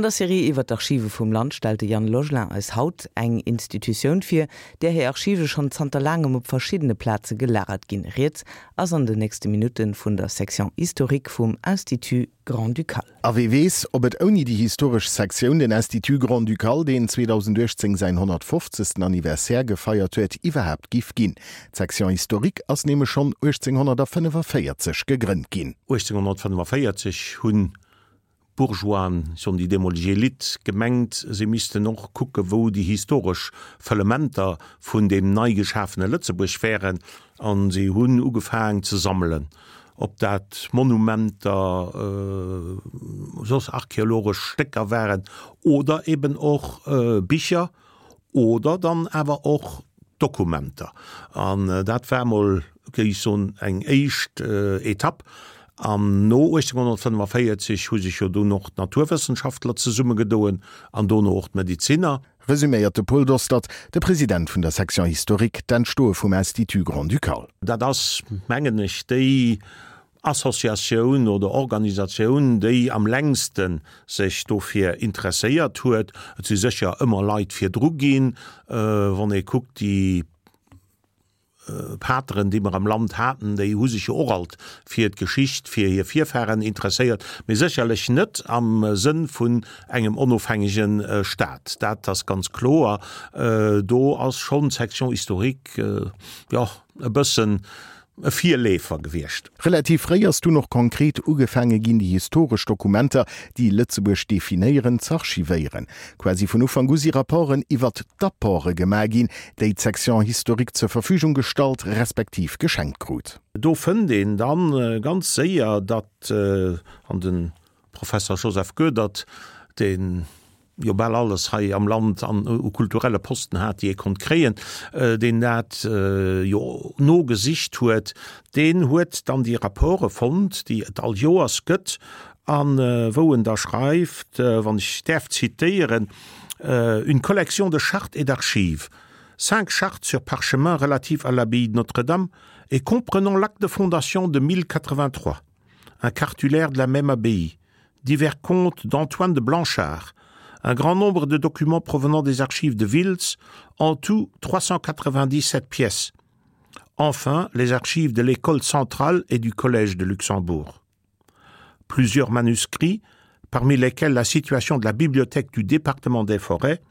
An der Serie iwwer d'Archive vum Land stellt de Yann Logelin eis haut eng Institutioun vir, där hir Archive schonn zanter laangem op verschiddene Plaze gelagert ginn. Rieds ass an den nächste Minutte vun der Section historique vum Institut Grand-Ducal. A wee weess, ob et ouni déi historesch Sektioun, den Institut Grand-Ducal, deen 2018 säin 150. Anniversaire gefeiert huet, iwwerhaapt giff ginn. D'Section historique ass nämlech schonn 1845 gegrënnt ginn. 1845 hunn d'Bourgeoisen, ech soen déi deemoleg Elite, gemengt, si missten och kucke wou déi historesch Fëllementer vun deem nei geschafene Lëtzebuerg wären, a si hunn ugefaang ze sammelen, ob dat Monumenter, soss archeologesch Stécker waren oder eben och Bicher oder dann awer och Dokumenter. An dat war emol, géif ech soen, eng éischt Etapp. An no 1845 hu sech jo dunn och d'Naturwëssenschaftler zesummegedoen an dono och d'Mediziner. Resuméiert de Paul Dostert, de President vun der Section historique, d'Entstoe vum Institut grand-ducal. Dat ass, mengen ech, déi Associatioun oder Organisatioun, déi am längste sech dofir interesséiert huet. Et si sécher ëmmer Leit virdru ginn, wann ee kuckt, déi Pateren, déi mer am Land haten, déi hu sech jo och alt fir d'Geschicht, fir hir Virfahren interesséiert, mee sécherlech net am Sënn vun engem onofhängege Staat. Dat ass ganz kloer. Do ass schonn d'Section historique, jo, e bëssen e Virleefer gewiescht. Relativ fréi ass dunn och konkret ugefaange ginn, déi historesch Dokumenter, déi Lëtzebuerg definéieren, z'archivéieren. Quasi vun Ufank u si Rapporten iwwert d'Apporte gemaach ginn, déi d'Section historique zur Verfügung gestallt respektiv geschenkt krut. Do fënnt een dann ganz séier, datt an de Professer Joseph Goedert, deen jo bal alles hei am Land an u kulturelle Posten hat, déi ee konnt kréien, deen dat jo nogesicht huet, deen huet dann déi Rapporte fonnt, déi et all Joers gëtt, a wou en da schreift, wann ech däerf zitéieren, Une collection de chartes et d'archives, cinq chartes sur parchemin relatives à l'abbaye de Notre-Dame et comprenant l'acte de fondation de 1083, un cartulaire de la même abbaye, divers comptes d'Antoine de Blanchard, un grand nombre de documents provenant des archives de Wiltz, en tout 397 pièces. Enfin, les archives de l'école centrale et du collège de Luxembourg. Plusieurs manuscrits, parmi lesquels la situation de la bibliothèque du département des forêts,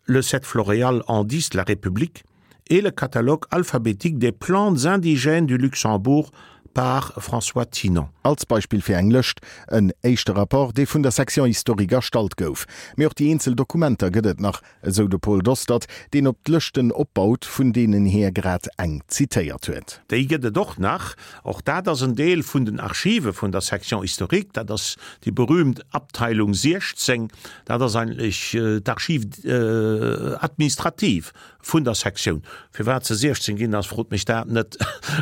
le 7 Floréal en 10 la République et le catalogue alphabétique des plantes indigènes du Luxembourg par François Tinon. Als Beispill fir eng Lëscht, en éischte Rapport, dee vun der Section historique erstallt gouf. Mee och déi eenzel Dokumenter gëtt et nach, esou de Paul Dostert, deen op d'Lëschten opbaut, vun deenen hie grad eng zitéiert huet. Déi gëtt et och nach. Och dat ass en Deel vun den Archive vun der Section historique. Dat ass déi berühmt Abteilung 16. Dat ass eigentlech d'Archive administrative vun der Sektioun. Firwat se 16 ginn ass, frot mech dat net.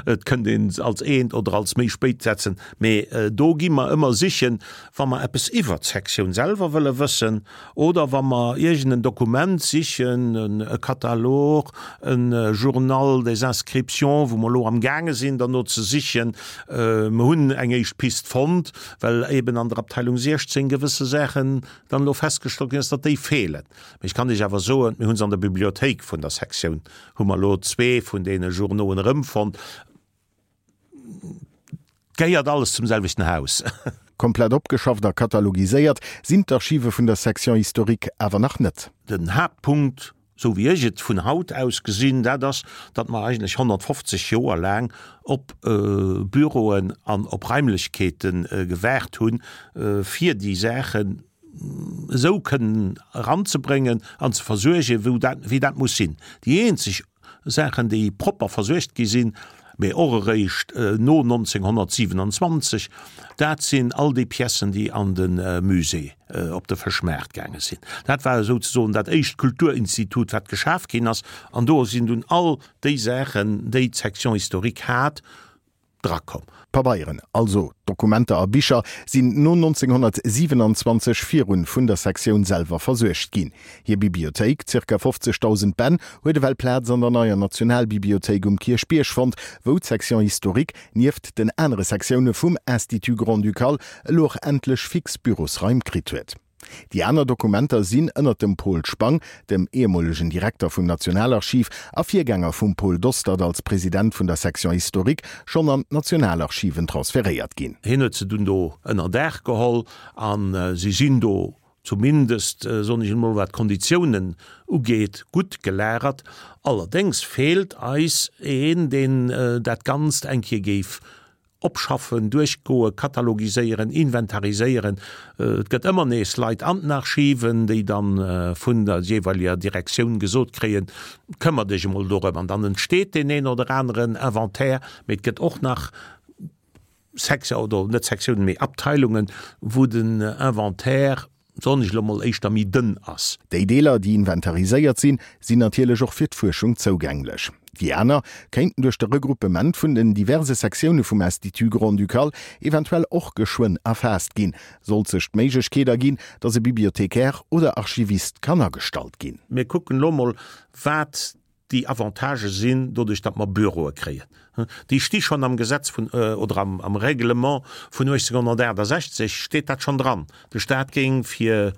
Et kënnt een se als eent oder als méi spéit setzen. Mee do gi mer ëmmer sichen, wa mer eppes iwwert d'Sektioun selwer wëlle wëssen oder wa mer iergend en Dokument sichen, e Katalog, e Journal des inscriptions, wou mer elo amgaange sinn derno ze sichen. Mer hunn eng éischt Pist fonnt, well eben an der Abteilung 16 gewësse Saachen dann elo festgestallt ginn ass, datt déi feelen. Mee ech kann Iech awer soen, mir hu se an der Bibliothéik vun der Sektioun, hu mer elo zwee vun deene Journauen erëmfonnt. Gehéiert alles zum selwechten Haus. Komplett opgeschafft a katalogiséiert sinn d'Archive vun der Section historique awer nach net. Den Haaptpunkt, esou wéi ech et vun haut aus gesinn, dat ass, datt mer eigentlech 150 Joer laang op Büroen an op Raimlechkeete gewaart hunn, fir déi Saachen esou kënnen eranzebréngen an ze versuergen, wou dat, wéi dat muss sinn. Déi eenzeg Saachen, déi propper versuergt gi sinn, mee och eréischt no 1927, dat sinn all déi Piècen, déi an de Musée op de Fëschmaart gaange sinn. Dat war esouzesoen dat éischt Kulturinstitut, wat geschaf ginn ass, an do sinn dunn all déi Saachen, déi d'Section historique hat, drakomm. Pabeieren, also Dokumenter a Bicher, sinn no 1927 virun vun der Sektioun selwer versuergt ginn. Hir Bibliothéik, zirka 50.000 Bänn, huet ewell Plaz an der neier Nationalbibliothéik um Kierchbierg fonnt, wou d'Section historique, nieft den anere Sektioune vum Institut grand-ducal, elo och endlech fix Bürosraim kritt huet. Déi aner Dokumenter sinn ënnert dem Pol Spang, dem ehemolegen Direkter vum Nationalarchiv a Virgänger vum Paul Dostert als President vun der Section historique, schonn an d'Nationalarchiven transferéiert ginn. Hien huet se dunn do ënner Daach geholl a si sinn do, zumindest, soen ech emol, wat d'Konditiounen ugeet, gutt gelagert. Allerdéngs feelt eis een, deen dat Ganzt eng Kéier géif Opschaffen, duerchgoen, katalogiséieren, inventariséieren. Et gëtt ëmmer nees Leit an den Archiven, déi dann vun der jeeweileger Direktioun gesot kréien, Këmmer dech emol dorëm. An dann entsteet deen een oder aneren Inventaire. Mee et gëtt och nach Sektio-, oder net Sektiounen, mee Abteilungen, wou den Inventaire, soen ech elo mol, éischter méi dënn ass. Déi Deeler, déi inventariséiert sinn, sinn natierlech och fir d'Fuerschung zougänglech. Déi aner kéinten duerch de Regruppement vun den diverse Sektioune vum Institut grand-ducal eventuell och geschwënn erfaasst ginn, sollt sech d'Méiglechkeet erginn, datt e Bibliothécaire oder Archivist kann agestallt ginn. Mir kucken elo mol, wat déi Avantagë sinn, doduerch datt mer Büroe kréien. Déi sti schonn am Gesetz vun, oder am Règlement vun 1868 steet dat schonn dran, de Staat géing fir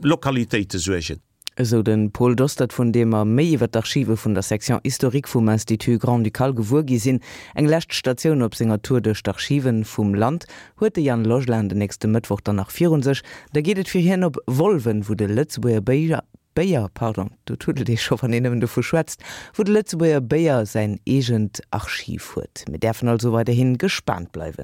Lokalitéite suergen. Esou de Paul Dostert, vun deem mer méi iwwer d'Archive vun der Section historique vum Institut Grand-Ducal gewuer gi sinn. Eng lescht Statioun op senger Tour duerch d'Archiven vum Land huet de Yann Logelin den nächste Mëttwoch dann nach virun sech. Da geet et fir hien op Wolwen, wou de Lëtzebuerger Béier, Béier, pardon, do tuddelt ee scho wann een nëmmen dovu schwätzt, wou de Lëtzebuerger Béier säin eegent Archiv huet. Mir däerfen also weiderhi gespaant bleiwen.